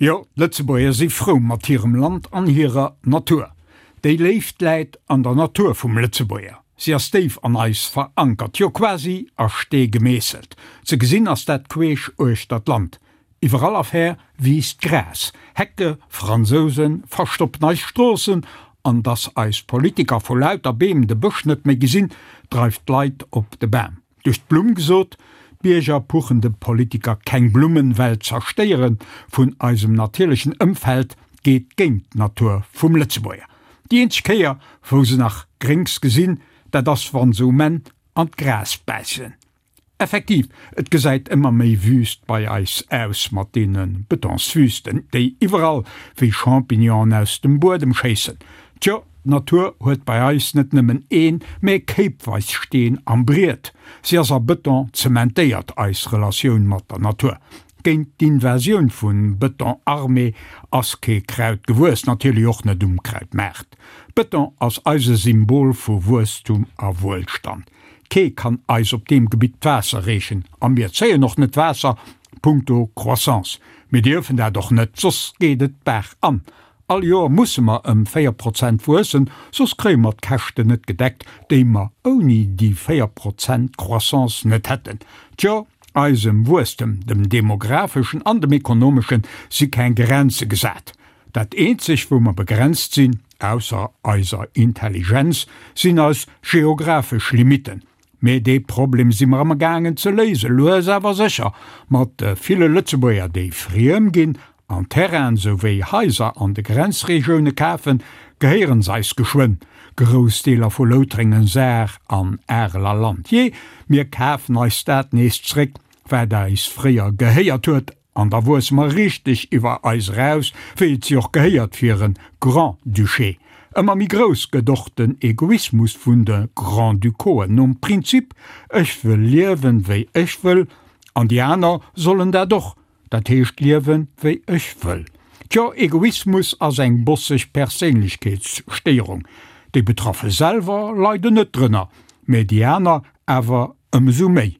Jo, d'Lëtzebuerger si frou mat hirem Land an hirer Natur. Déi Léift läit an der Natur vum Lëtzebuerger. Si ass déif an eis verankert, jo quasi a Stee gemeesselt. Ze gesinn ass dat queesch uechter d'Land. Iwwerall a ver wiisst Gras, Hecke, Fransousen verstoppen eis Stroossen an dass eis Politiker vu lauter Beem de Bësch net méi gesinn, dreift d'Leit op de Bam. Duerch d'Blumm gesot, d'Bierger puchen de Politiker keng Blummen, well d'Zerstéiere vun eisem natierlechen Ëmfeld geet géint d'Natur vum Lëtzebuerger. Déi eenzeg Kéier wou se nach Gréngs gesinn, dat ass wann se um Enn an d'Gras bäissen. Effektiv, et gesäit ëmmer méi wüst bei eis aus mat deene Betonswüsten, déi iwwerall wéi Champignonen aus dem Buedem schéissen. Tjo, d'Natur huet bei eis net nëmmen een, mä kéipweis Steen am Briet. Si ass a Beton zementéiert, eis Relatioun mat der Natur. Géint d'Invasioun vu Beton armé ass kee Kraut gewuess, natierlech och net um Krautmaart. Beton ass eise Symbol vu Wuesstum a Wuelstand. Kee kann eis op deem Gebitt d'Waasser reechen a mir zéien och net d'Waasser punkto Croissance. Mir dierfen dat och net, soss geet et d'Baach an. All Joer musse mer ëm 4 Prozent wuessen, soss kréie mer d'Käschten net gedeckt, déi mer ouni déi 4 Prozent Croissance net hätten. Tjo, eisem Wuesstem, dem demographeschen an dem ekonomeschen, si keng Grenze gesat. Dat eenzeg wou mer begrenzt sinn, Ausser eiser Intelligenz sinn eis geographesch Limitten. Mee dee Problem si mer amgaangen ze léisen, lues awer sécher, mat de ville Lëtzebuerger, déi friem ginn an Terrainen souwéi Haiser an de Grenzregioune kafen, gehéieren s'eis geschwënn, grouss Deeler vu Loutrengen, Saar an Areler Land. Jee, mir kafen eis dat nees zréck, wat eis fréier gehéiert huet. An da wuesse mer richteg iwwer eis eraus, wéi et si och gehéiert fir e Grand-Duché. Ëmmer méi grouss gëtt och den Egoismus vun de Grand-Ducauxen, nom Prinzip, ech wëll liewen, wéi ech wëll, an déi aner sollen dat och, dat heescht liewen, wéi ech wëll. Tjo, Egoismus ass eng bosseg Perséinlechkeetsstéierung. Déi Betraffe selwer leiden net drënner, mä déi aner awer ëmsou méi.